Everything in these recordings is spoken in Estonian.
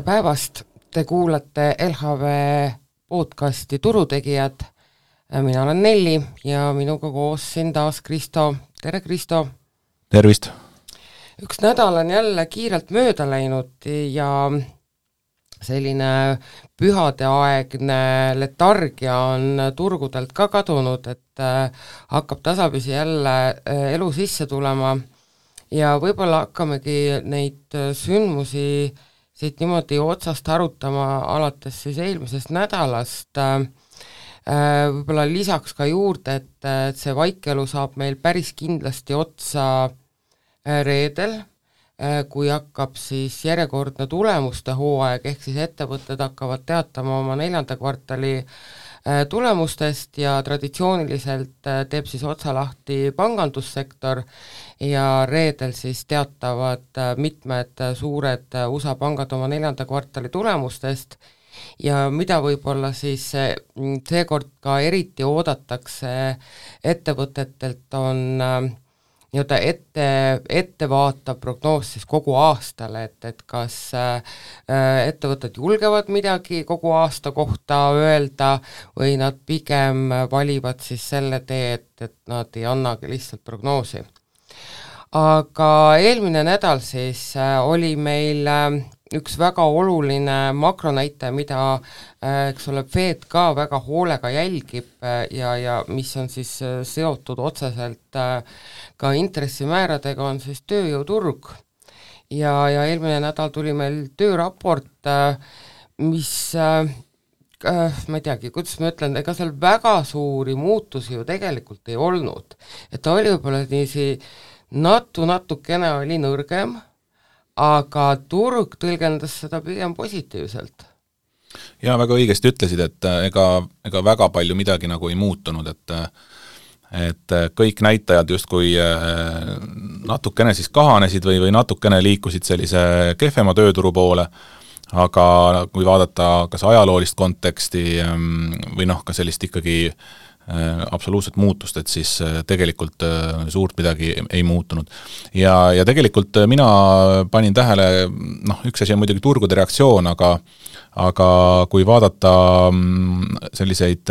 Tere päevast! Te kuulate LHV podcasti Turutegijad. Mina olen Nelli ja minuga koos siin taas Kristo. Tere Kristo! Tervist! Üks nädal on jälle kiirelt mööda läinud ja selline pühadeaegne letargia on turgudelt ka kadunud, et hakkab tasapisi jälle elu sisse tulema ja võib-olla hakkamegi neid sündmusi siit niimoodi otsast arutama alates siis eelmisest nädalast. Võib-olla lisaks ka juurde, et see vaikelu saab meil päris kindlasti otsa reedel, kui hakkab siis järjekordne tulemuste hooaeg, ehk siis ettevõtted hakkavad teatama oma 4. kvartali tulemustest ja traditsiooniliselt teeb siis otsa lahti pangandussektor ja reedel siis teatavad mitmed suured USA pangad oma 4. kvartali tulemustest ja mida võib-olla siis seekord ka eriti oodatakse ettevõtetelt on nii-öelda ettevaatav prognoos siis kogu aastale, et kas ettevõtted julgevad midagi kogu aasta kohta öelda või nad pigem valivad siis selle tee, et nad ei annagi lihtsalt prognoosi. Aga eelmine nädal siis oli meil üks väga oluline makronäite, mida eks ole, Fed ka väga hoolega jälgib ja mis on siis seotud otseselt ka intressimääradega, on siis tööjõuturg. Ja eelmine nädal tuli meil tööraport, mis ma ei teagi, kuidas ma ütlen, ega seal väga suuri muutusi ju tegelikult ei olnud. Et ta oli võib-olla niisi natukene oli nõrgem, aga turg tõlgendas seda pigem positiivselt. Ja väga õigesti ütlesid, et ega väga palju midagi nagu ei muutunud, et kõik näitajad justkui natukene siis kahanesid või natukene liikusid sellise kehvema tööturu poole, aga kui vaadata kas ajaloolist konteksti või ka sellist ikkagi absoluutset muutust, et siis tegelikult suurt midagi ei muutunud. Ja tegelikult mina panin tähele, üks asi on muidugi turgude reaktsioon, aga kui vaadata selliseid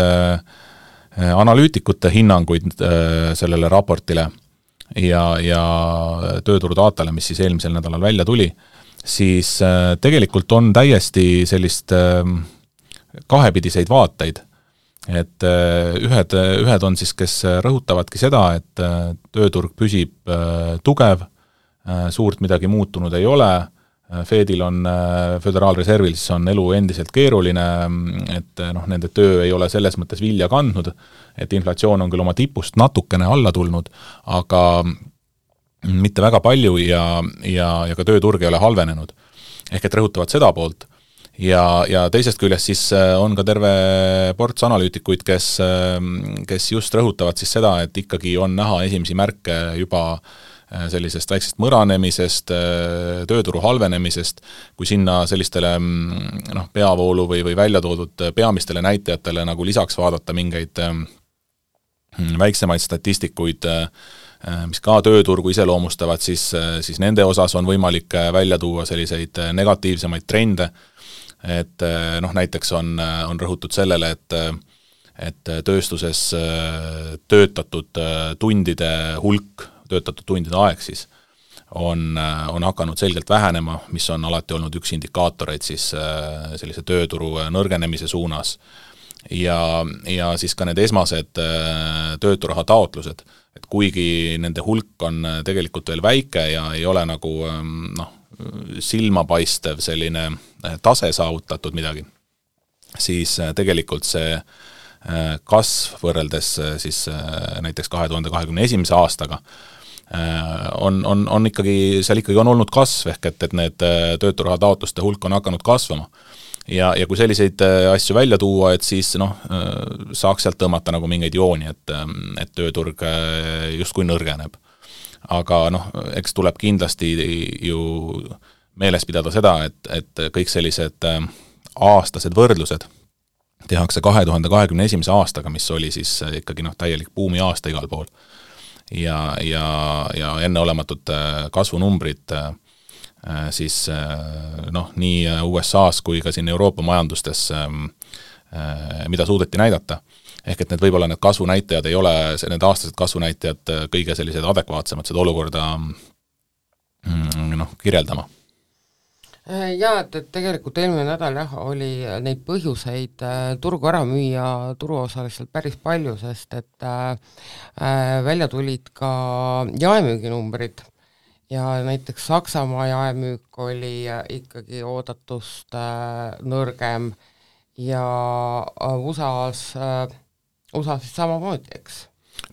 analüütikute hinnanguid sellele raportile ja tööturu datale, mis siis eelmisel nädalal välja tuli, siis tegelikult on täiesti sellist kahepidiseid vaateid. Et ühed on siis, kes rõhutavadki seda, et tööturg püsib tugev, suurt midagi muutunud ei ole, Fedil on, Föderaalreservil siis on elu endiselt keeruline, et nende töö ei ole selles mõttes vilja kandnud, et inflatsioon on küll oma tipust natukene alla tulnud, aga mitte väga palju ja ka tööturg ei ole halvenenud. Ehk et rõhutavad seda poolt. Ja teisest küljest siis on ka terve ports analüütikuid, kes just rõhutavad siis seda, et ikkagi on näha esimesi märke juba sellisest väiksest mõranemisest, tööturu halvenemisest, kui sinna sellistele peavoolu või välja toodud peamistele näitajatele nagu lisaks vaadata mingeid väiksemaid statistikuid, mis ka tööturgu iseloomustavad, siis nende osas on võimalik välja tuua selliseid negatiivsemaid trende, et näiteks on rõhutud sellele, et tööstuses töötatud tundide hulk, töötatud tundide aeg siis on hakanud selgelt vähenema, mis on alati olnud üks indikaatoreid siis sellise tööturu nõrgenemise suunas. Ja siis ka need esmased tööturaha taotlused, et kuigi nende hulk on tegelikult veel väike ja ei ole nagu silmapaistev selline tase saavutatud midagi, siis tegelikult see kasv võrreldes siis näiteks 2021. aastaga on ikkagi, seal ikkagi on olnud kasv, ehk et need tööturaha taotluste hulk on hakanud kasvama. Ja kui selliseid asju välja tuua, et siis saaks sealt tõmmata nagu mingeid jooni, et tööturg justkui nõrgeneb. Aga eks tuleb kindlasti ju meeles pidada seda, et kõik sellised aastased võrdlused tehakse 2021. aastaga, mis oli siis ikkagi täielik buumi aasta igal pool. Ja enneolematud kasvunumbrid siis nii USA-s kui ka siin Euroopa majandustes, mida suudeti näidata. Ehk et võib-olla need kasvunäitajad ei ole, need aastased kasvunäitajad kõige sellised adekvaatsemad seda olukorda kirjeldama. Jaa, et tegelikult eelmine nädal oli neid põhjuseid turgu ära müüa turuosaliselt päris palju, sest et välja tulid ka jaemüüginumbrid ja näiteks Saksamaa jaemüük oli ikkagi oodatust nõrgem ja USA-s siis samamoodi, eks?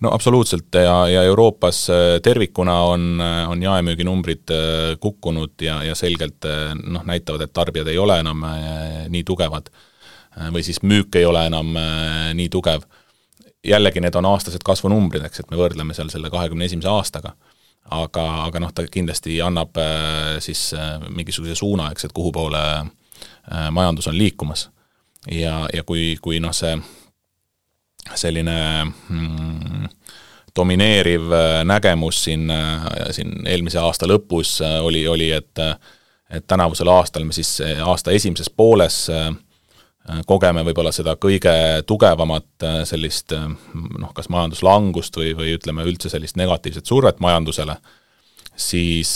No absoluutselt ja Euroopas tervikuna on jaemüüginumbrid kukkunud ja selgelt näitavad, et tarbijad ei ole enam nii tugevad või siis müük ei ole enam nii tugev. Jällegi need on aastased kasvunumbrid, eks, et me võrdleme seal selle 21. aastaga. Aga ta kindlasti annab siis mingisuguse suuna, eks, et kuhu poole majandus on liikumas. Ja kui see selline domineeriv nägemus siin eelmise aasta lõpus oli et tänavusel aastal me siis aasta esimeses pooles kogeme võib-olla seda kõige tugevamat sellist kas majanduslangust või ütleme üldse sellist negatiivset survet majandusele, siis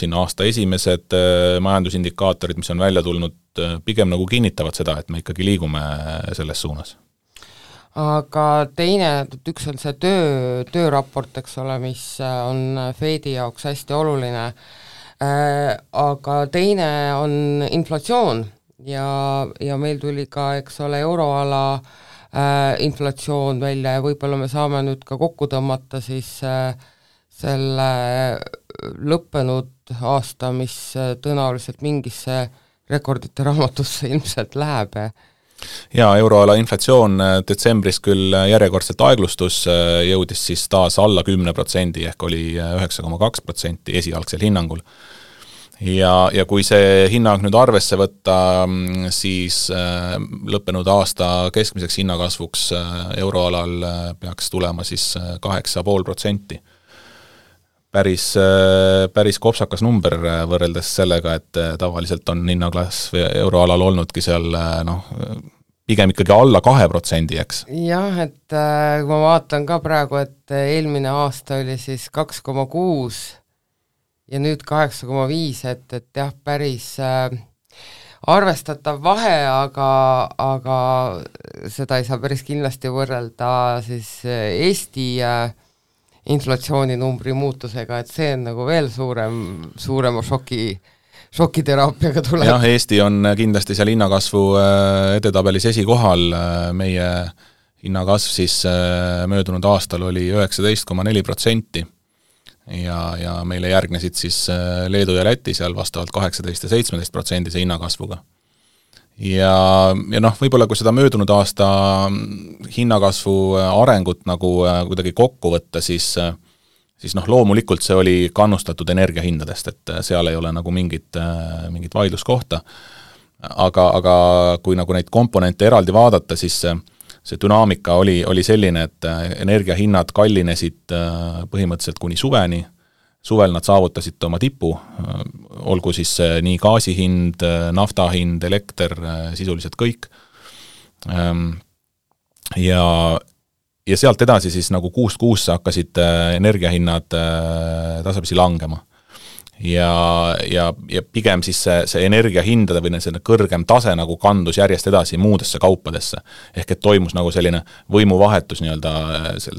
siin aasta esimesed majandusindikaatorid, mis on välja tulnud, pigem nagu kinnitavad seda, et me ikkagi liigume selles suunas. Aga teine, üks on see tööraport, eks ole, mis on Fedi jaoks hästi oluline, aga teine on inflatsioon ja meil tuli ka, eks ole, euroala inflatsioon välja ja võib-olla me saame nüüd ka kokku tõmmata siis selle lõppenud aasta, mis tõenäoliselt mingisse rekordite raamatusse ilmselt läheb. Ja euroala inflatsioon detsembris küll järjekordselt aeglustus, jõudis siis taas alla 10%, ehk oli 9,2% esialgsel hinnangul. Ja kui see hinnang nüüd arvesse võtta, siis lõppenud aasta keskmiseks hinnakasvuks euroalal peaks tulema siis 8,5%. Päris kopsakas number võrreldes sellega, et tavaliselt on hinnaklasv euroalal olnudki seal pigem ikkagi alla 2%, eks? Jah, et kui ma vaatan ka praegu, et eelmine aasta oli siis 2,6 ja nüüd 8,5, et jah, päris arvestatav vahe, aga seda ei saa päris kindlasti võrrelda siis Eesti inflatsiooninumbri muutusega, et see on nagu veel suurema šokiteraapiaga tuleb. Jah, Eesti on kindlasti seal hinnakasvu edetabelis esikohal, meie hinnakasv siis möödunud aastal oli 19,4% ja meile järgnesid siis Leedu ja Läti seal vastavalt 18 ja 17% hinnakasvuga. Ja võib-olla kui seda möödunud aasta hinnakasvu arengut nagu kuidagi kokku võtta, siis loomulikult see oli kannustatud energiahindadest, et seal ei ole nagu mingit vaidluskohta. Aga kui nagu neid komponente eraldi vaadata, siis see dünaamika oli selline, et energiahinnad kallinesid põhimõtteliselt kuni suveni. Suvel nad saavutasid oma tipu, olgu siis nii gaasihind, naftahind, elekter, sisuliselt kõik. Ja sealt edasi siis nagu kuust kuusse hakkasid energiahinnad tasapisi langema. Ja pigem siis see energiahindade või see kõrgem tase nagu kandus järjest edasi muudesse kaupadesse. Ehk et toimus nagu selline võimuvahetus nii-öelda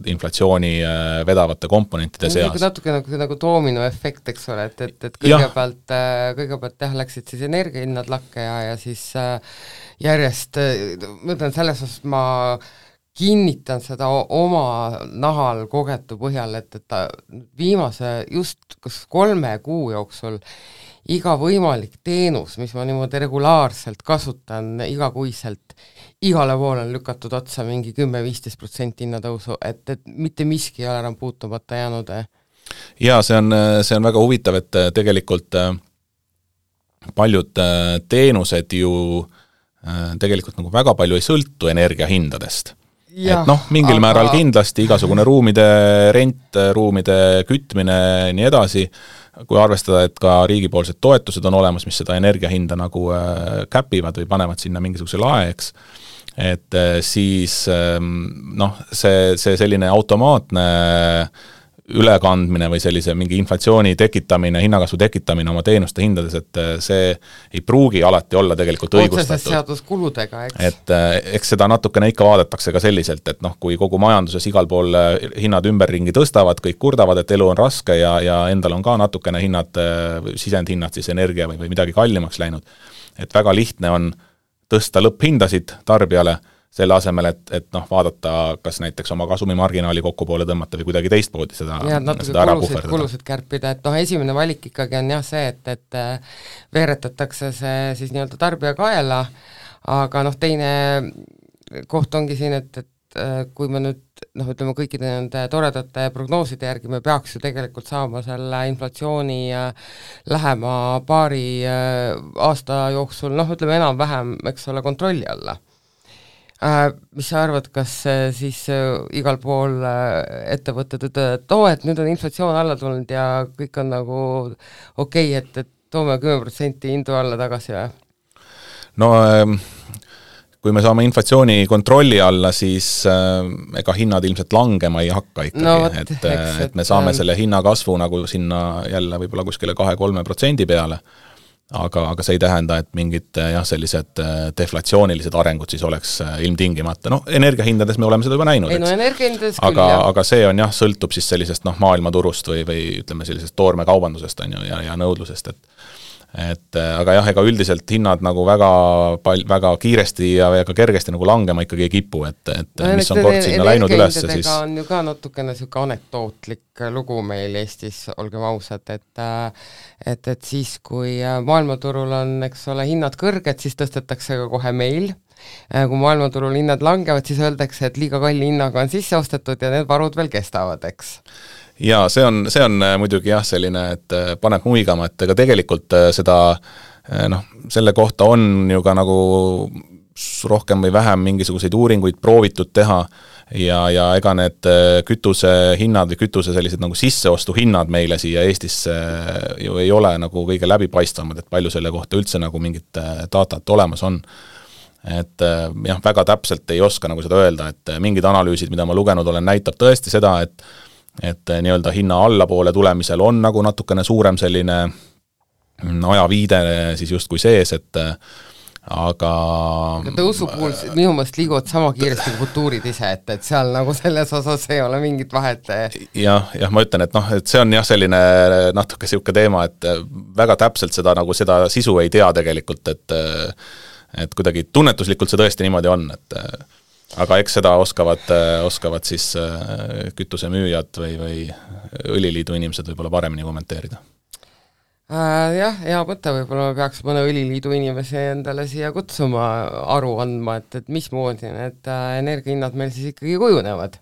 inflatsiooni vedavate komponentide seas. Natuke nagu doominoefekt, eks ole, et kõigepealt jah, läksid siis energiahinnad lakke ja siis järjest, ma ütlen selles osas, ma kinnitan seda oma nahal kogetu põhjal, et viimase just kas 3 kuu jooksul iga võimalik teenus, mis ma niimoodi regulaarselt kasutan igakuiselt, igale poole on lükatud otsa mingi 10-15% hinnatõusu, et mitte miski ei ole enam puutumata jäänud. Ja see on väga huvitav, et tegelikult paljud teenused ju tegelikult nagu väga palju ei sõltu energiahindadest. Ja, et mingil määral kindlasti igasugune ruumide rent, ruumide kütmine, nii edasi, kui arvestada, et ka riigipoolsed toetused on olemas, mis seda energiahinda nagu käpivad või panevad sinna mingisuguse lae, eks, et siis noh, see selline automaatne ülekandmine või sellise mingi inflatsiooni tekitamine, hinnakasvu tekitamine oma teenuste hindades, et see ei pruugi alati olla tegelikult õigustatud. Otseses seaduskuludega, eks. Et eks seda natukene ikka vaadatakse ka selliselt, et noh, kui kogu majanduses igal pool hinnad ümberringi tõstavad, kõik kurdavad, et elu on raske ja endal on ka natukene hinnad, sisendhinnad siis energia või midagi kallimaks läinud. Et väga lihtne on tõsta lõpphindasid tarbijale, selle asemel, et noh, vaadata, kas näiteks oma kasumimarginaali kokku poole tõmmata või kuidagi teistpoodi seda ära puhverdada. Kulusid kärpida, et noh, esimene valik ikkagi on jah see, et veeretatakse see siis nii-öelda tarbija kaela, aga noh, teine koht ongi siin, et kui me nüüd noh, ütleme kõikide nende toredate prognooside järgi me peaks ju tegelikult saama selle inflatsiooni lähema paari aasta jooksul, noh, ütleme enam-vähem, eks ole, kontrolli alla. Mis sa arvad, kas siis igal pool ettevõtted ütlevad, et nüüd on inflatsioon alla tulnud ja kõik on nagu okei, et toome 10% hindu alla tagasi või? No kui me saame inflatsiooni kontrolli alla, siis ega hinnad ilmselt langema ei hakka ikkagi, no, et me saame selle hinnakasvu nagu sinna jälle võib-olla kuskile 2-3% peale, aga see ei tähenda, et mingid jah, sellised deflatsioonilised arengud siis oleks ilmtingimata. No energiahindades me oleme seda juba näinud, ei, no, energiahindades küll, aga see on jah, sõltub siis sellisest noh, maailmaturust või ütleme sellisest toormekaubandusest on ju, ja nõudlusest, et aga jah, ega üldiselt hinnad nagu väga kiiresti ja väga kergesti nagu langema ikkagi ei kipu, et no, mis on kord sinna läinud üles, siis on ju ka natukene selline anekdootlik lugu meil Eestis, olgem ausad, et siis, kui maailmaturul on, eks ole, hinnad kõrged, siis tõstetakse ka kohe meil, kui maailmaturul hinnad langevad, siis öeldakse, et liiga kalli hinnaga on sisse ostetud ja need varud veel kestavad, eks. Jaa, see on muidugi jah selline, et paneb muigama, et ega tegelikult seda, noh, selle kohta on ju ka nagu rohkem või vähem mingisuguseid uuringuid proovitud teha ja ega need kütusehinnad või kütuse sellised nagu sisseostuhinnad meile siia Eestisse ju ei ole nagu kõige läbipaistvamad, et palju selle kohta üldse nagu mingit datat olemas on. Et jah, väga täpselt ei oska nagu seda öelda, et mingid analüüsid, mida ma lugenud olen, näitab tõesti seda, et nii-öelda hinna allapoole tulemisel on nagu natukene suurem selline ajaviide siis justkui sees, et aga tõusu puhul minu mõelest liiguvad sama kiiresti kui futuurid ise, et seal nagu selles osas ei ole mingit vahet. Jah, ma ütlen, et noh, et see on jah selline natuke siuke teema, et väga täpselt seda sisu ei tea tegelikult, et kuidagi tunnetuslikult see tõesti niimoodi on, et aga eks seda oskavad siis kütusemüüjad või õliliidu inimesed võib-olla paremini kommenteerida. Jah, hea mõte, võib-olla me peaks mõne õliliidu inimese endale siia kutsuma aru andma, et mismoodi need energiahinnad meil siis ikkagi kujunevad.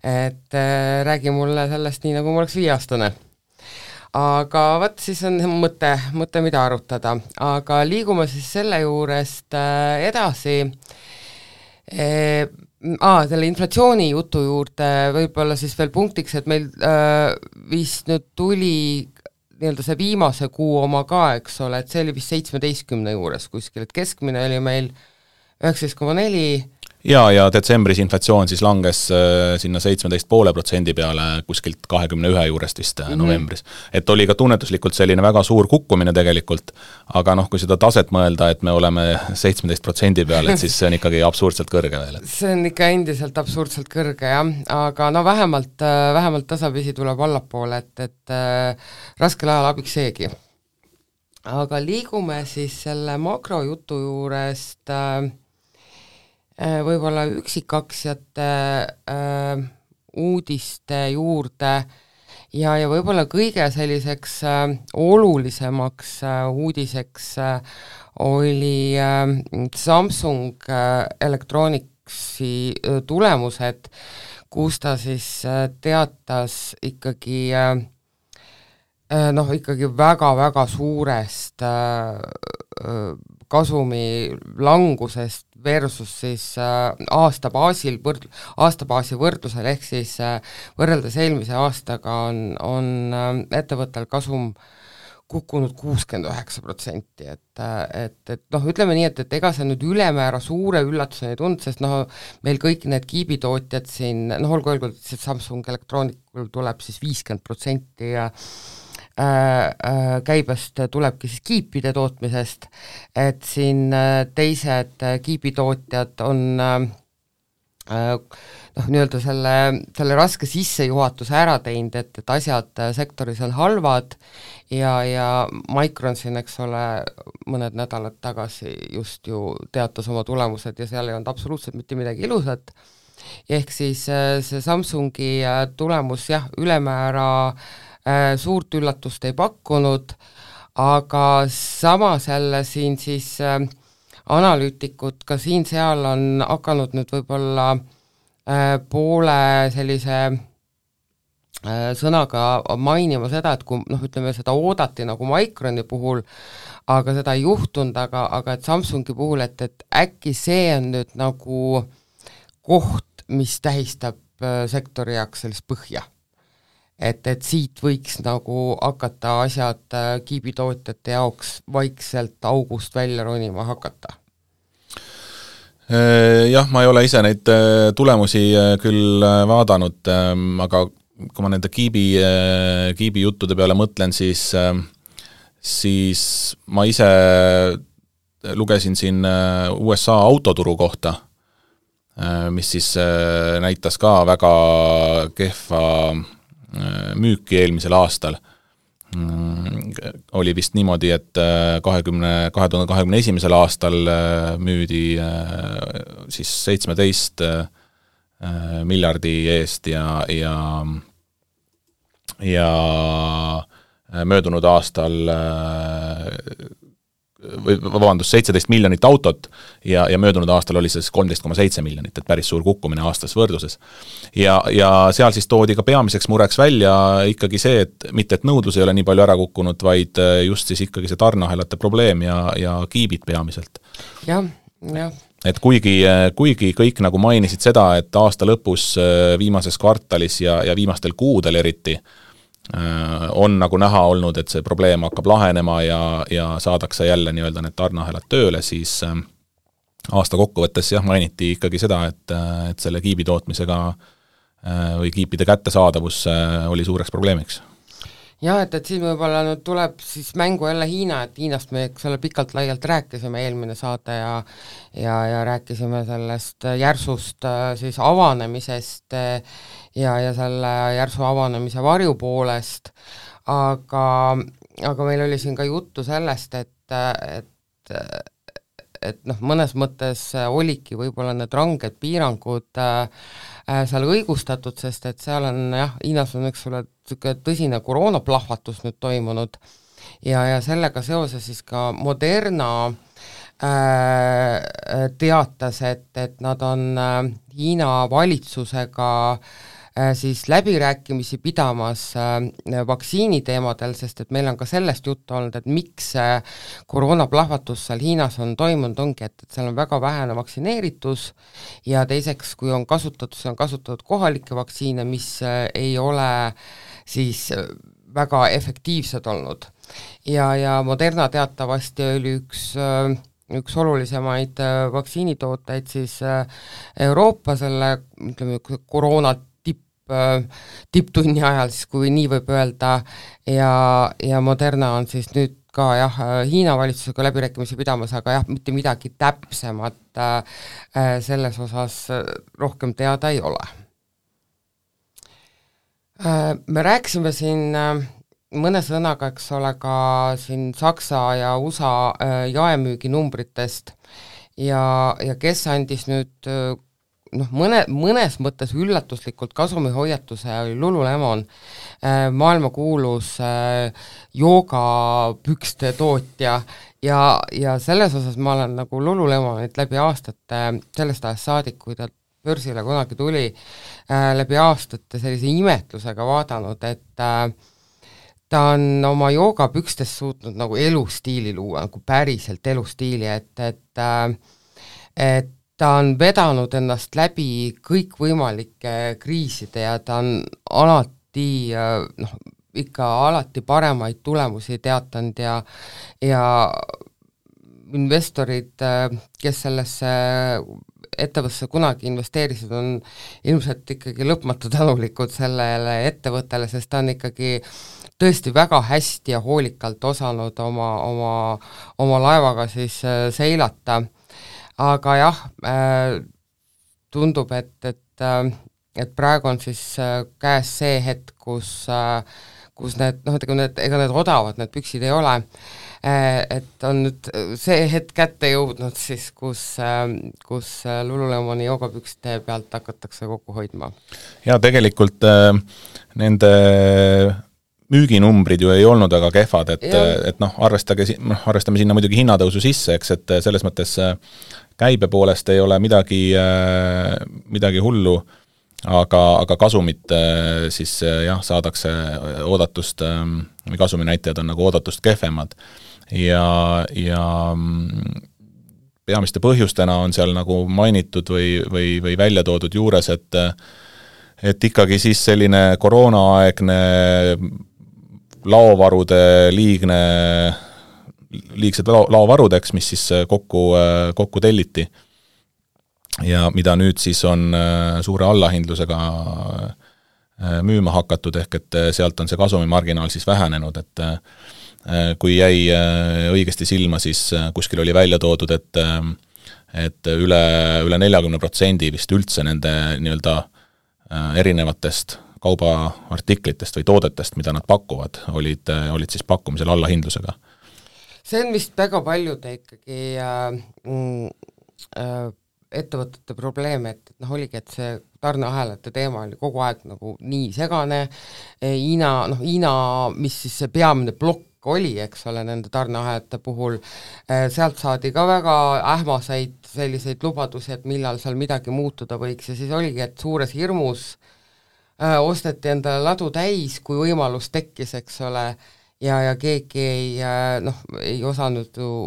Et räägi mulle sellest nii, nagu mul oleks 5-aastane. Aga võt, siis on mõte, mida arutada. Aga liigume siis selle juurest edasi selle inflatsiooni jutu juurde võib-olla siis veel punktiks, et meil vist nüüd tuli nii-öelda see viimase kuu oma ka, eks ole, et see oli vist 17 juures kuskil, et keskmine oli meil 19,4. Ja detsembris inflatsioon siis langes sinna 17,5% peale kuskilt 21 juurest vist novembris. Et oli ka tunnetuslikult selline väga suur kukkumine tegelikult, aga noh, kui seda taset mõelda, et me oleme 17% peale, et siis see on ikkagi absurdselt kõrge veel. See on ikka endiselt absurdselt kõrge, jah, aga no vähemalt tasapisi tuleb allapoole, et raskel ajal abiks seegi. Aga liigume siis selle makrojutu juurest võib-olla üksikaktsiate uudiste juurde ja võib-olla kõige selliseks olulisemaks uudiseks oli Samsung Electronicsi tulemused, kus ta siis teatas ikkagi ikkagi väga-väga suurest kasumi langusest versus siis aastabaasi võrdlusel, ehk siis võrreldes eelmise aastaga on ettevõttel kasum kukkunud 69%, et noh, ütleme nii, et ega see nüüd ülemäära suure üllatuseni ei tundnud, sest noh, meil kõik need kiibitootjad siin, noh, olgu öeldud, et Samsung Electronicul tuleb siis 50% ja käibest tulebki siis kiipide tootmisest, et siin teised kiibitootjad on noh, nii-öelda selle raske sissejuhatuse ära teinud, et asjad sektoris on halvad ja Micron siin, eks ole, mõned nädalad tagasi just ju teatas oma tulemused ja seal ei olnud absoluutselt mitte midagi ilusat, ehk siis see Samsungi tulemus jah, ülemäära suurt üllatust ei pakkunud, aga samas jälle siin siis analüütikud ka siin-seal on hakanud nüüd võib-olla poole sellise sõnaga mainima seda, et kui noh, ütleme seda oodati nagu Microni puhul, aga seda ei juhtunud, aga et Samsungi puhul, et äkki see on nüüd nagu koht, mis tähistab sektori jaoks sellist põhja. Et siit võiks nagu hakata asjad kiibitootjate jaoks vaikselt august välja ronima hakata. Jah, ma ei ole ise neid tulemusi küll vaadanud, aga kui ma nende kiibi juttude peale mõtlen, siis ma ise lugesin siin USA autoturu kohta, mis siis näitas ka väga kehva müüki eelmisel aastal. Oli vist niimoodi, et 2021. aastal müüdi siis 17 miljardi eest ja möödunud aastal 17 miljonit autot ja möödunud aastal oli see 13,7 miljonit, et päris suur kukkumine aastas võrdluses. Ja seal siis toodi ka peamiseks mureks välja ikkagi see, et mitte et nõudlus ei ole nii palju ära kukkunud, vaid just siis ikkagi see tarneahelate probleem ja kiibid peamiselt. Jah. Et kuigi kõik nagu mainisid seda, et aasta lõpus viimases kvartalis ja viimastel kuudel eriti on nagu näha olnud, et see probleem hakkab lahenema ja saadakse jälle nii-öelda need tarneahelad tööle, siis aasta kokkuvõttes jah, mainiti ikkagi seda, et selle kiibi tootmisega või kiipide kättesaadavus oli suureks probleemiks. Jah, et siin võib-olla nüüd tuleb siis mängu jälle Hiina, et Hiinast me selle pikalt laialt rääkisime eelmine saade ja rääkisime sellest järsust siis avanemisest ja selle järsu avanemise varjupoolest, aga meil oli siin ka juttu sellest, et noh, mõnes mõttes olidki võib-olla need ranged piirangud seal õigustatud, sest et seal on jah, Hiinas on üks tõsine koroonaplahvatus nüüd toimunud ja sellega seoses siis ka Moderna teatas, et nad on Hiina valitsusega siis läbirääkimisi pidamas vaktsiini teemadel, sest et meil on ka sellest juttu olnud, et miks koroonaplahvatus seal Hiinas on toimunud, ongi, et seal on väga vähene vaktsineeritus ja teiseks, kui on kasutatud kohalikke vaktsiine, mis ei ole siis väga efektiivsed olnud. Ja Moderna teatavasti oli üks olulisemaid vaktsiinitooteid siis Euroopa selle, ütleme, koroona tipptunni ajal, siis kui nii võib öelda, ja Moderna on siis nüüd ka jah, Hiina valitsusega läbirääkimisi pidamas, aga jah, mitte midagi täpsemat selles osas rohkem teada ei ole. Me rääkisime siin mõne sõnaga, eks ole, ka siin Saksa ja USA jaemüüginumbritest ja kes andis nüüd noh, mõnes mõttes üllatuslikult kasumihoiatuse oli Lululemon, maailmakuulus joogapükste tootja ja selles osas ma olen nagu Lululemonit läbi aastate, sellest ajast saadik, kui ta börsile kunagi tuli, läbi aastate sellise imetlusega vaadanud, et ta on oma joogapükstes suutnud nagu elustiili luua, nagu päriselt elustiili, et ta on vedanud ennast läbi kõikvõimalike kriiside ja ta on alati ikka alati paremaid tulemusi teatanud ja investorid, kes sellesse ettevõttesse kunagi investeerisid, on ilmselt ikkagi lõpmatu tänulikud sellele ettevõttele, sest ta on ikkagi tõesti väga hästi ja hoolikalt osanud oma laevaga siis seilata, aga jah, tundub, et praegu on siis käes see hetk, kus need, ega need odavad, need püksid ei ole, et on nüüd see hetk kätte jõudnud siis, kus Lululemoni joogapükste pealt hakatakse kokku hoidma. Ja tegelikult nende müüginumbrid ju ei olnud väga kehvad, et arvestame sinna muidugi hinnatõusu sisse, eks, et selles mõttes käibe poolest ei ole midagi hullu, aga kasumit siis jah, saadakse oodatust, või kasuminäitajad on nagu oodatust kehvemad ja peamiste põhjustena on seal nagu mainitud või välja toodud juures, et ikkagi siis selline koroonaaegne liigsed laovarudeks, mis siis kokku telliti ja mida nüüd siis on suure allahindlusega müüma hakatud, ehk et sealt on see kasumimarginaal siis vähenenud, et kui jäi õigesti silma, siis kuskil oli välja toodud, et üle 40% vist üldse nende nii-öelda erinevatest kaubaartiklitest või toodetest, mida nad pakuvad, olid siis pakkumisel allahindlusega. See on vist väga paljude ikkagi ettevõtete probleem, et oligi, et see tarneahelate teema oli kogu aeg nagu nii segane, Hiina, mis siis see peamine plokk oli, eks ole, nende tarneahelate puhul, sealt saadi ka väga ähmaseid selliseid lubadusi, et millal seal midagi muutuda võiks ja siis oligi, et suures hirmus osteti endale ladu täis, kui võimalus tekkis, eks ole, ja keegi ei osanud ju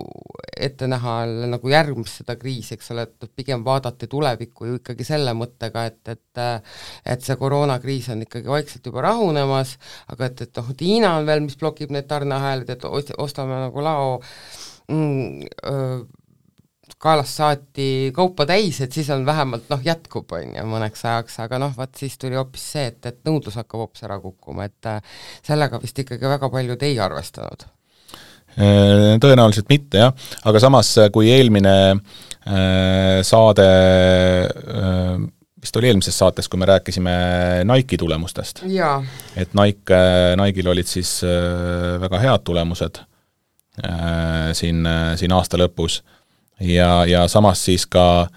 ette näha nagu järgmist seda kriisi, eks ole, et pigem vaadati tulevikku ju ikkagi selle mõttega, et see koroonakriis on ikkagi vaikselt juba rahunemas, aga et Hiina on veel, mis blokib need tarneahelad, et ostame nagu lao kaelast saati kaupa täis, et siis on vähemalt jätkub, mõneks ajaks, aga vaat siis tuli hoopis see, et nõudlus hakkab hoopis ära kukkuma, et sellega vist ikkagi väga paljud ei arvestanud. Tõenäoliselt mitte, jah, aga samas, kui eelmine saade, vist oli eelmises saates, kui me rääkisime Nike'i tulemustest, et Nike'il olid siis väga head tulemused siin aasta lõpus, ja samas siis ka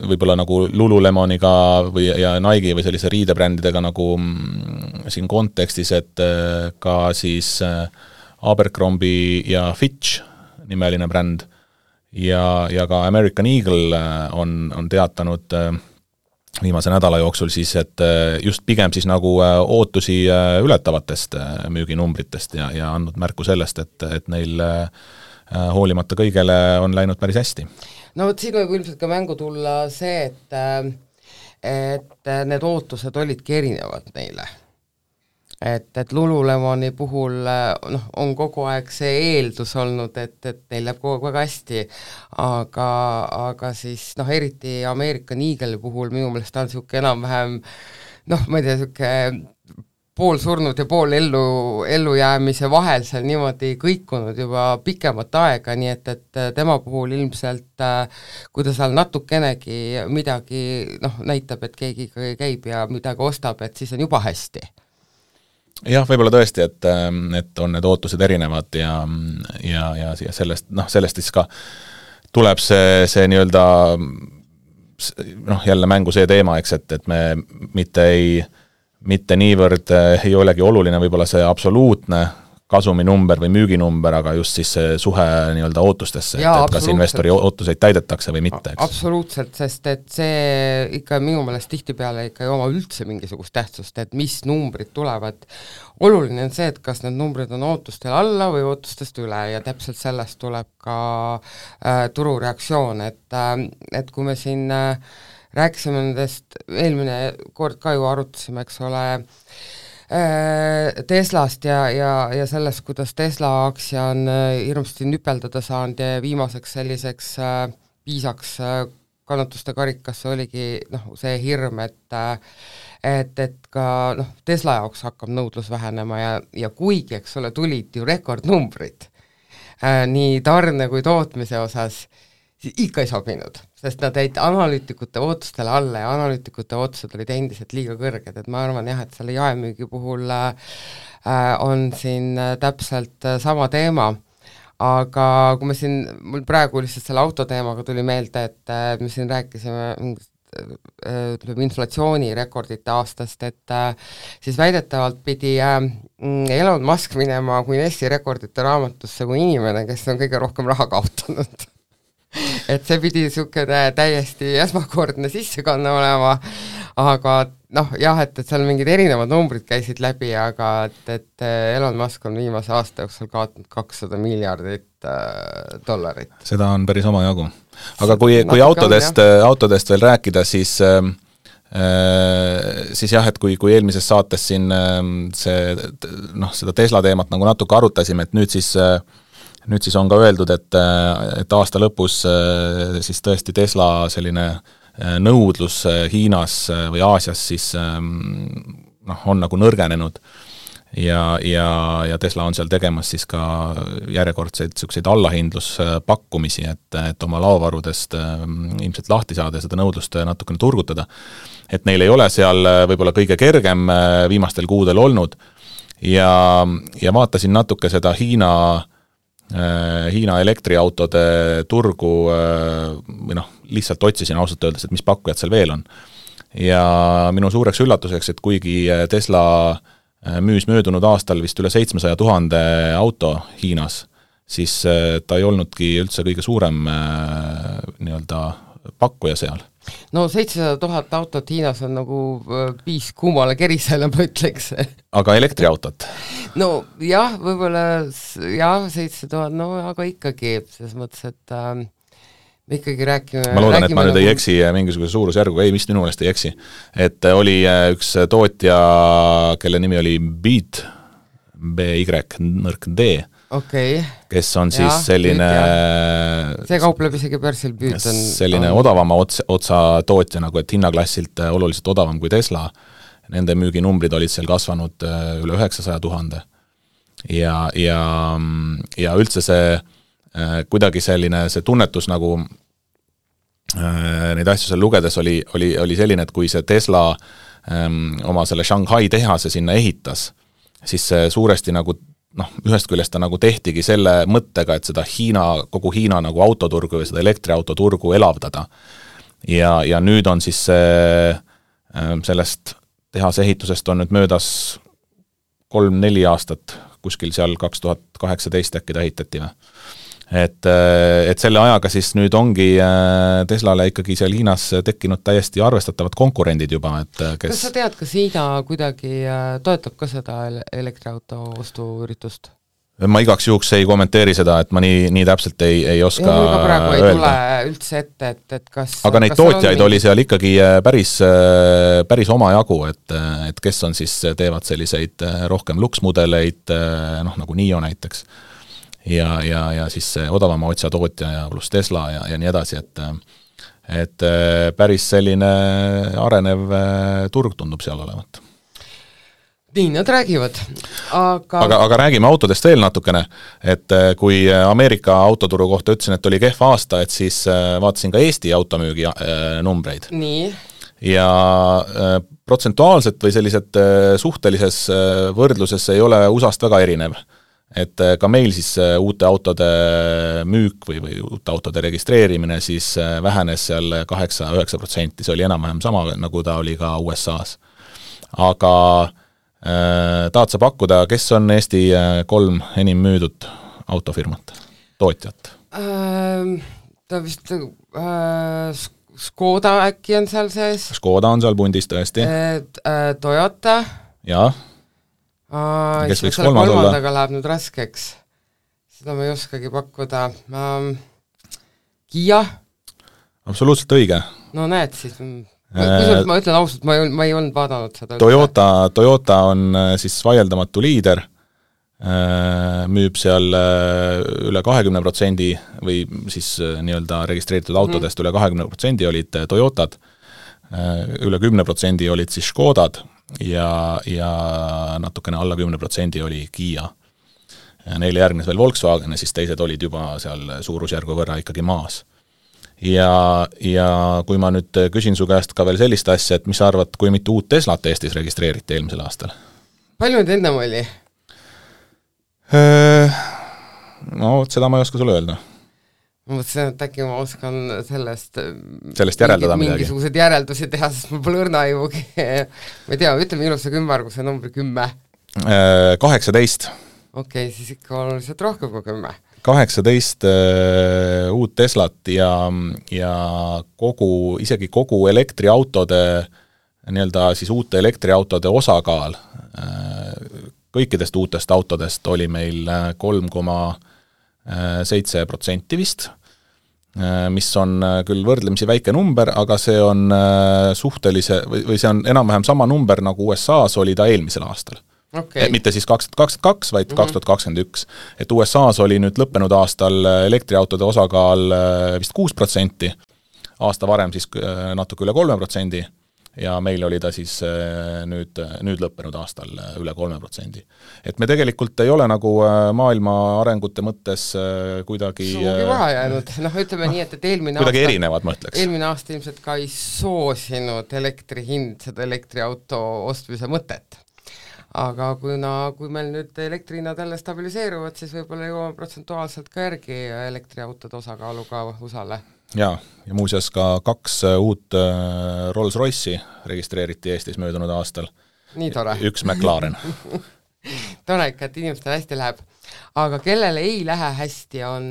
võib-olla nagu Lululemoniga ja Nike või sellise riidebrändidega nagu siin kontekstis, et ka siis Abercrombie ja Fitch nimeline bränd ja ka American Eagle on teatanud viimase nädala jooksul siis, et just pigem siis nagu ootusi ületavatest müüginumbritest ja andnud märku sellest, et neil hoolimata kõigele on läinud päris hästi. No vot siin võib ilmselt ka mängu tulla see, et need ootused olidki erinevad neile. Et Lululemoni puhul on kogu aeg see eeldus olnud, et neil läheb kogu aeg väga hästi, aga siis eriti American Eagle puhul minu meelest on niisugune enam-vähem ma ei tea, niisugune pool surnud ja pool ellujäämise vahel seal niimoodi kõikunud juba pikemat aega, nii et tema puhul ilmselt, kui ta seal natukenegi midagi näitab, et keegi käib ja midagi ostab, et siis on juba hästi. Jah, võib-olla tõesti, et on need ootused erinevad ja sellest siis ka tuleb see nii-öelda jälle mängu see teema, eks, et me mitte niivõrd ei olegi oluline võib-olla see absoluutne kasuminumber või müüginumber, aga just siis see suhe nii-öelda ootustesse, et kas investori ootuseid täidetakse või mitte, eks? Absoluutselt, sest et see ikka minu meelest tihtipeale ikka ei oma üldse mingisugust tähtsust, et mis numbrid tulevad. Oluline on see, et kas need numbrid on ootustel alla või ootustest üle ja täpselt sellest tuleb ka turureaktsioon, et kui me siin rääkisime nendest, eelmine kord ka ju arutasime, eks ole, Teslast ja sellest, kuidas Tesla aktsia on hirmsasti nüpeldada saanud ja viimaseks selliseks piisaks kannatuste karikasse oligi see hirm, et ka Tesla jaoks hakkab nõudlus vähenema ja kuigi, eks ole, tulid ju rekordnumbrid nii tarne kui tootmise osas, siis ikka ei sobinud, sest nad jäid analüütikute ootustele alla ja analüütikute ootused olid endiselt liiga kõrged, et ma arvan jah, et selle jaemüügi puhul on siin täpselt sama teema, aga kui me siin, mul praegu lihtsalt selle autoteemaga tuli meelde, et me siin rääkisime inflatsioonirekordite aastast, et siis väidetavalt pidi Elon Musk minema Guinessi rekordite raamatusse kui inimene, kes on kõige rohkem raha kaotanud. Et see pidi niisugune täiesti esmakordne sissekanne olema, aga jah, et seal mingid erinevad numbrid käisid läbi, aga et Elon Musk on viimase aasta jooksul kaotanud $200 miljardit. Seda on päris omajagu. Aga kui autodest veel rääkida, siis jah, et kui eelmises saates siin seda Tesla teemat nagu natuke arutasime, et nüüd siis on ka öeldud, et aasta lõpus siis tõesti Tesla selline nõudlus Hiinas või Aasias siis on nagu nõrgenenud ja Tesla on seal tegemas siis ka järjekordseid selliseid allahindluspakkumisi, et oma laovarudest ilmselt lahti saada ja seda nõudlust natukene turgutada. Et neil ei ole seal võib-olla kõige kergem viimastel kuudel olnud ja vaatasin natuke seda Hiina elektriautode turgu või lihtsalt otsisin ausalt öeldes, et mis pakkujad seal veel on. Ja minu suureks üllatuseks, et kuigi Tesla müüs möödunud aastal vist üle 700,000 auto Hiinas, siis ta ei olnudki üldse kõige suurem nii-öelda pakkuja seal. No 700,000 autot Hiinas on nagu piis kuumale kerisele, ma ütleks. Aga elektriautot? No jah, võib-olla jah, 700,000, no aga ikkagi, selles mõttes, et me ikkagi räägime... Ma loodan, et ma nüüd ei eksi mingisuguse suurusjärguga, ei, vist minu meelest ei eksi. Et oli üks tootja, kelle nimi oli Beat, B-Y-D, kes on siis selline... See kaupleb isegi börsil Beat on... Selline odavama otsa tootja, nagu et hinnaklassilt oluliselt odavam kui Tesla. Nende müüginumbrid olid seal kasvanud üle 900,000. Ja üldse see kuidagi selline see tunnetus nagu neid asju seal lugedes oli selline, et kui see Tesla oma selle Shanghai tehase sinna ehitas, siis see suuresti nagu ühest küljest ta nagu tehtigi selle mõttega, et seda kogu Hiina nagu autoturgu või seda elektriautoturgu elavdada. Ja nüüd on siis sellest tehase ehitusest on nüüd möödas 3-4 aastat, kuskil seal 2018 äkki ta ehitati või. Et selle ajaga siis nüüd ongi Teslale ikkagi seal Hiinas tekkinud täiesti arvestatavad konkurendid juba, et kes... Kas sa tead, kas Hiina kuidagi toetab ka seda elektriauto ostuüritust? Ma igaks juhuks ei kommenteeri seda, et ma nii täpselt ei oska öelda. Praegu ei tule üldse ette, et kas... Aga neid tootjaid oli seal ikkagi päris omajagu, et kes on siis, teevad selliseid rohkem luksmudeleid, nagu NIO näiteks, ja siis odavama otsa tootja ja pluss Tesla ja nii edasi, et päris selline arenev turg tundub seal olevat. Nii, nad räägivad, aga räägime autodest veel natukene, et kui Ameerika autoturu kohta ütlesin, et oli kehva aasta, et siis vaatasin ka Eesti automüügi numbreid. Nii. Ja protsentuaalselt või sellised suhtelises võrdluses ei ole USA-st väga erinev. Et ka meil siis uute autode müük või uute autode registreerimine siis vähenes seal 8-9%, see oli enam-vähem sama, nagu ta oli ka USA-s. Aga tahad sa pakkuda, kes on Eesti 3 enim müüdud autofirmat, tootjat? Ta vist Škoda äkki on seal sees. Škoda on seal pundis tõesti. Toyota. Jah. Kes võiks kolmas olla? Kolmandaga läheb nüüd raskeks. Seda ma ei oskagi pakkuda. Kia. Absoluutselt õige. No näed siis. Ma ütlen ausalt, ma ei olnud vaadanud seda. Toyota on siis vaieldamatu liider, müüb seal üle 20% või siis nii-öelda registreeritud autodest üle 20% olid Toyotad, üle 10% olid siis Škodad ja natukene alla 10% oli Kia. Neile järgnes veel Volkswagen ja siis teised olid juba seal suurusjärgu võrra ikkagi maas. Ja kui ma nüüd küsin su käest ka veel sellist asja, et mis sa arvad, kui mitu uut Teslat Eestis registreeriti eelmisel aastal? Palju nüüd ennem oli? No, seda ma ei oska sulle öelda. Ma mõtlesin, et äkki ma oskan sellest järeldada midagi. Mingisugused järeldusi teha, sest mul pole õrna juugi. Ma ei tea, ütle minusse kümmarguse numbri 10. 18. Okei, siis ikka oluliselt rohkem kui 10. 18 uut Teslat ja isegi kogu elektriautode, nii-öelda siis uute elektriautode osakaal kõikidest uutest autodest oli meil 3,7% vist, mis on küll võrdlemisi väike number, aga see on või see on enam-vähem sama number, nagu USA-s oli ta eelmisel aastal. Okay. Mitte siis 2022, vaid 2021. Et USA-s oli nüüd lõppenud aastal elektriautode osakaal vist 6%, aasta varem siis natuke üle 3% ja meil oli ta siis nüüd lõppenud aastal üle 3%. Et me tegelikult ei ole nagu maailma arengute mõttes kuidagi suugi vahe jäänud. Ütleme nii, et eelmine kuidagi aasta, erinevad, ma ütleks. Eelmine aasta ilmselt ka ei soosinud elektrihind seda elektriauto ostmise mõtet. Aga kui meil nüüd elektrihinnad jälle stabiliseeruvad, siis võib-olla jõuame protsentuaalselt ka järgi elektriautode osakaaluga USA-le. Ja muuseas ka 2 uut Rolls-Royce'i registreeriti Eestis möödunud aastal. Nii tore. 1 McLaren. Tore ikka, et inimestel hästi läheb. Aga kellele ei lähe hästi on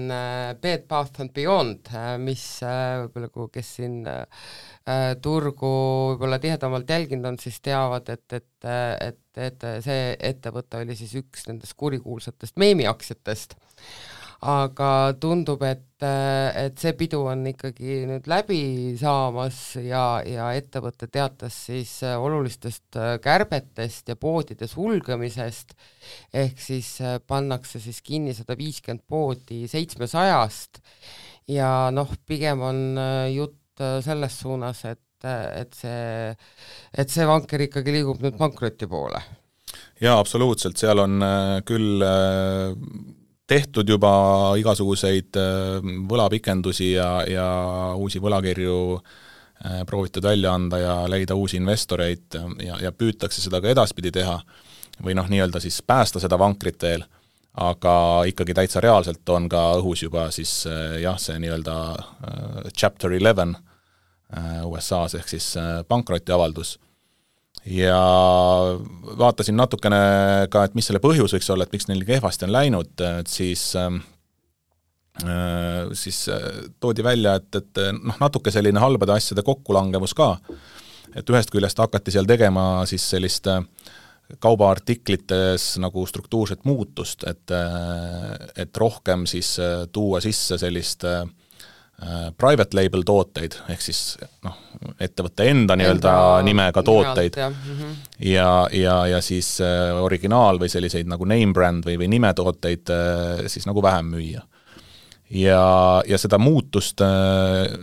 Bed Bath & Beyond, mis võib-olla kes siin turgu võib-olla tihedamalt jälginud on, siis teavad, et see ettevõte oli siis üks nendest kurikuulsatest meemiaktsiatest. Aga tundub, et see pidu on ikkagi nüüd läbi saamas ja ettevõte teatas siis olulistest kärbetest ja poodide sulgemisest, ehk siis pannakse siis kinni 150 poodi 700-st ja pigem on jutt selles suunas, et see vanker ikkagi liigub nüüd pankroti poole. Jaa, absoluutselt, seal on küll tehtud juba igasuguseid võlapikendusi ja uusi võlakirju proovitud välja anda ja leida uusi investoreid ja püütakse seda ka edaspidi teha või nii-öelda siis päästa seda vankrit veel, aga ikkagi täitsa reaalselt on ka õhus juba siis see nii-öelda Chapter 11 USA-s ehk siis pankrotiavaldus. Ja vaatasin natukene ka, et mis selle põhjus võiks olla, et miks neil kehvasti on läinud, et siis toodi välja, et natuke selline halbade asjade kokkulangevus ka, et ühest küljest hakati seal tegema siis sellist kaubaartiklites nagu struktuurset muutust, et rohkem siis tuua sisse sellist private label tooteid, ehk siis ettevõtte enda nii-öelda nimega tooteid ja siis originaal või selliseid nagu name brand või nimetooteid siis nagu vähem müüa. Ja seda muutust,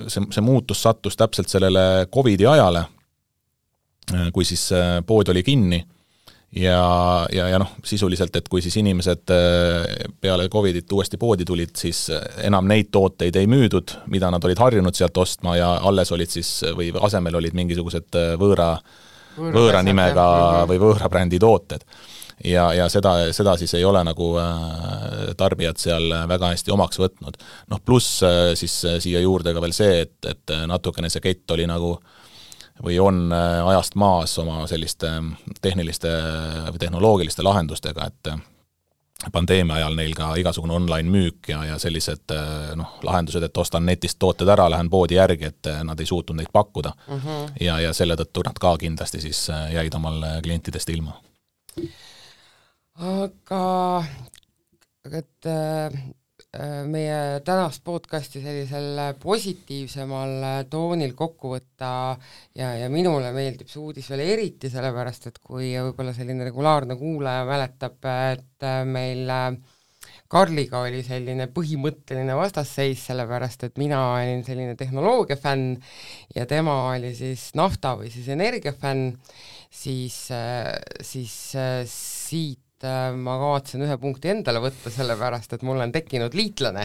see muutus sattus täpselt sellele COVID-i ajale, kui siis pood oli kinni ja sisuliselt, et kui siis inimesed peale COVID-it uuesti poodi tulid, siis enam neid tooteid ei müüdud, mida nad olid harjunud sealt ostma ja alles olid siis, või asemel olid mingisugused võõra nimega või võõra brändi tooted. Ja seda siis ei ole nagu tarbijad seal väga hästi omaks võtnud. Pluss siis siia juurde ka veel see, et natukene see kett oli nagu või on ajast maas oma selliste tehniliste või tehnoloogiliste lahendustega, et pandeemia ajal neil ka igasugune online müük ja sellised lahendused, et ostan netist tooted ära, lähen poodi järgi, et nad ei suutnud neid pakkuda. Ja selle tõttu nad ka kindlasti siis jäid omal klientidest ilma. Aga et meie tänast podcasti sellisel positiivsemal toonil kokku võtta ja minule meeldib see uudis veel eriti, sellepärast et kui võib-olla selline regulaarne kuulaja mäletab, et meil Karliga oli selline põhimõtteline vastasseis, sellepärast et mina olin selline tehnoloogia fänn ja tema oli siis nafta või siis energia fänn, siis siit ma kavatsen ühe punkti endale võtta, sellepärast et mul on tekkinud liitlane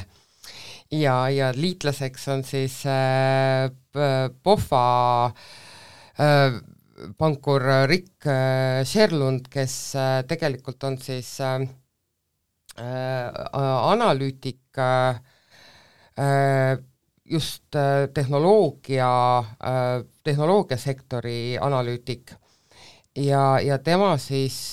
ja liitlaseks on siis POFA pankur Rick Sherlund, kes tegelikult on siis analüütik, just tehnoloogiasektori analüütik ja tema siis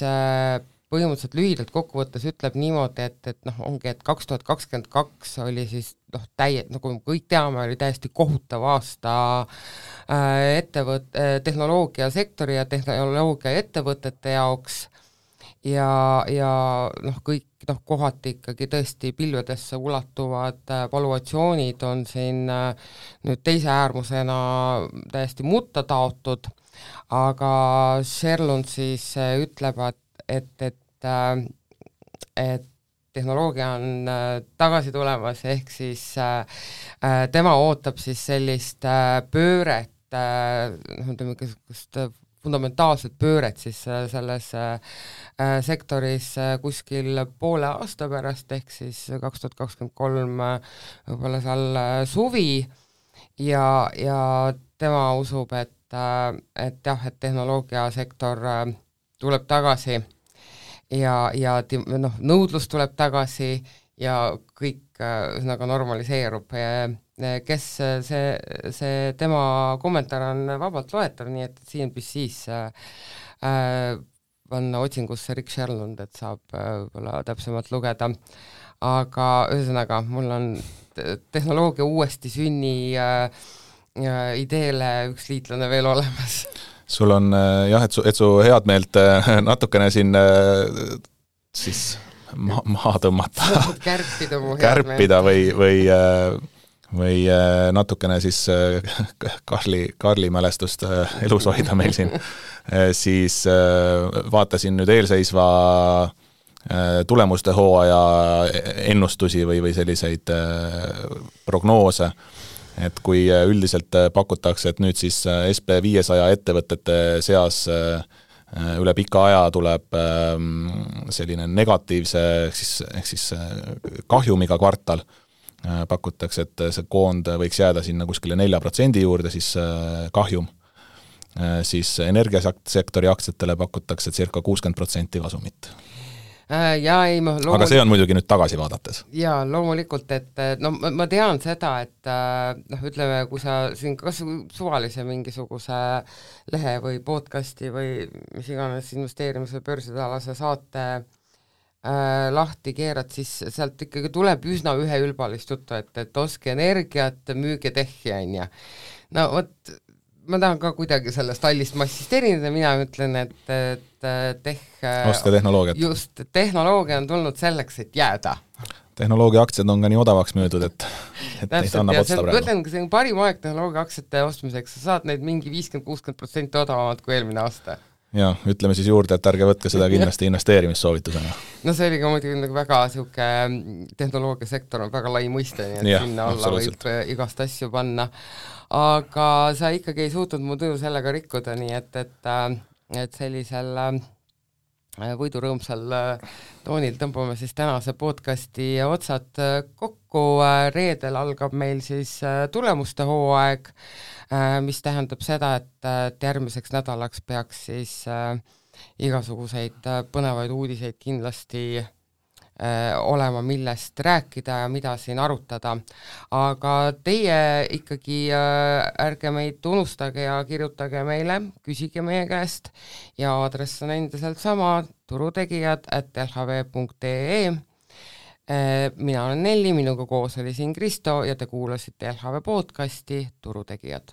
põhimõtteliselt lühidalt kokkuvõttes ütleb niimoodi, et ongi, et 2022 oli siis nagu kõik teame, oli täiesti kohutav aasta tehnoloogiasektori ja tehnoloogiaettevõtete jaoks ja kõik kohati ikkagi tõesti pilvedesse ulatuvad valuatsioonid on siin nüüd teise äärmusena täiesti mutta taotud, aga Sherlund siis ütleb, et tehnoloogia on tagasi tulemas, ehk siis tema ootab siis sellist pööret, fundamentaalset pööret siis selles sektoris kuskil poole aasta pärast, ehk siis 2023 võib-olla seal suvi ja tema usub, et tehnoloogiasektor tuleb tagasi ja nõudlus tuleb tagasi ja kõik ühesõnaga normaliseerub. Kes see tema kommentaar on vabalt loetav, nii et CNBC-s panna otsingusse Rick Sherlund, et saab võib-olla täpsemalt lugeda. Aga ühesõnaga, mul on tehnoloogia uuesti sünni ideele üks liitlane veel olemas. Sul on jah, et su head meelt natukene siin siis maha tõmmata, kärpida või natukene siis Karli mälestust elus hoida meil siin, siis vaatasin nüüd eelseisva tulemuste hooaja ennustusi või selliseid prognoose, et kui üldiselt pakutakse, et nüüd siis SP500 ettevõtete seas üle pika aja tuleb selline negatiivse ehk siis kahjumiga kvartal, pakutakse, et see koond võiks jääda sinna kuskile 4% juurde, siis kahjum, siis energiasektori aktsiatele pakutakse circa 60% kasumit. Aga see on muidugi nüüd tagasi vaadates. Jaa, loomulikult, et ma tean seda, et ütleme, kui sa siin kas suvalise mingisuguse lehe või podcasti või mis iganes investeerimise börsitalase saate lahti keerad, siis sealt ikkagi tuleb üsna üheülbalist juttu, et oske energiat, müüge tehhi, on ja. No vot, ma tahan ka kuidagi sellest allist massist erineda, mina ütlen, et oska tehnoloogiat. Just, tehnoloogia on tulnud selleks, et jääda. Tehnoloogia aktsiad on ka nii odavaks müüdud, et neid annab otsta praegu. Ütlen, kui see on parim aeg tehnoloogia aktsiate ostmiseks, sa saad neid mingi 50-60% odavamad kui eelmine aasta. Ja, ütleme siis juurde, et ärge võtke seda kindlasti investeerimissoovitusena. No see oli ka muidugi väga siuke tehnoloogiasektor on väga lai mõiste, nii et sinna alla võib igast asju panna. Aga sa ikkagi ei suutnud mu tuju sellega rikkuda, nii et sellisel võidurõõmsal toonil tõmbame siis tänase podcasti otsad kokku. Reedel algab meil siis tulemuste hooaeg, mis tähendab seda, et järgmiseks nädalaks peaks siis igasuguseid põnevaid uudiseid kindlasti olema, millest rääkida ja mida siin arutada. Aga teie ikkagi ärge meid unustage ja kirjutage meile, küsige meie käest ja aadress on endiselt sama, turutegijad@lhv.ee. Mina olen Nelli, minuga koos oli siin Kristo ja te kuulasite LHV podcasti Turutegijad.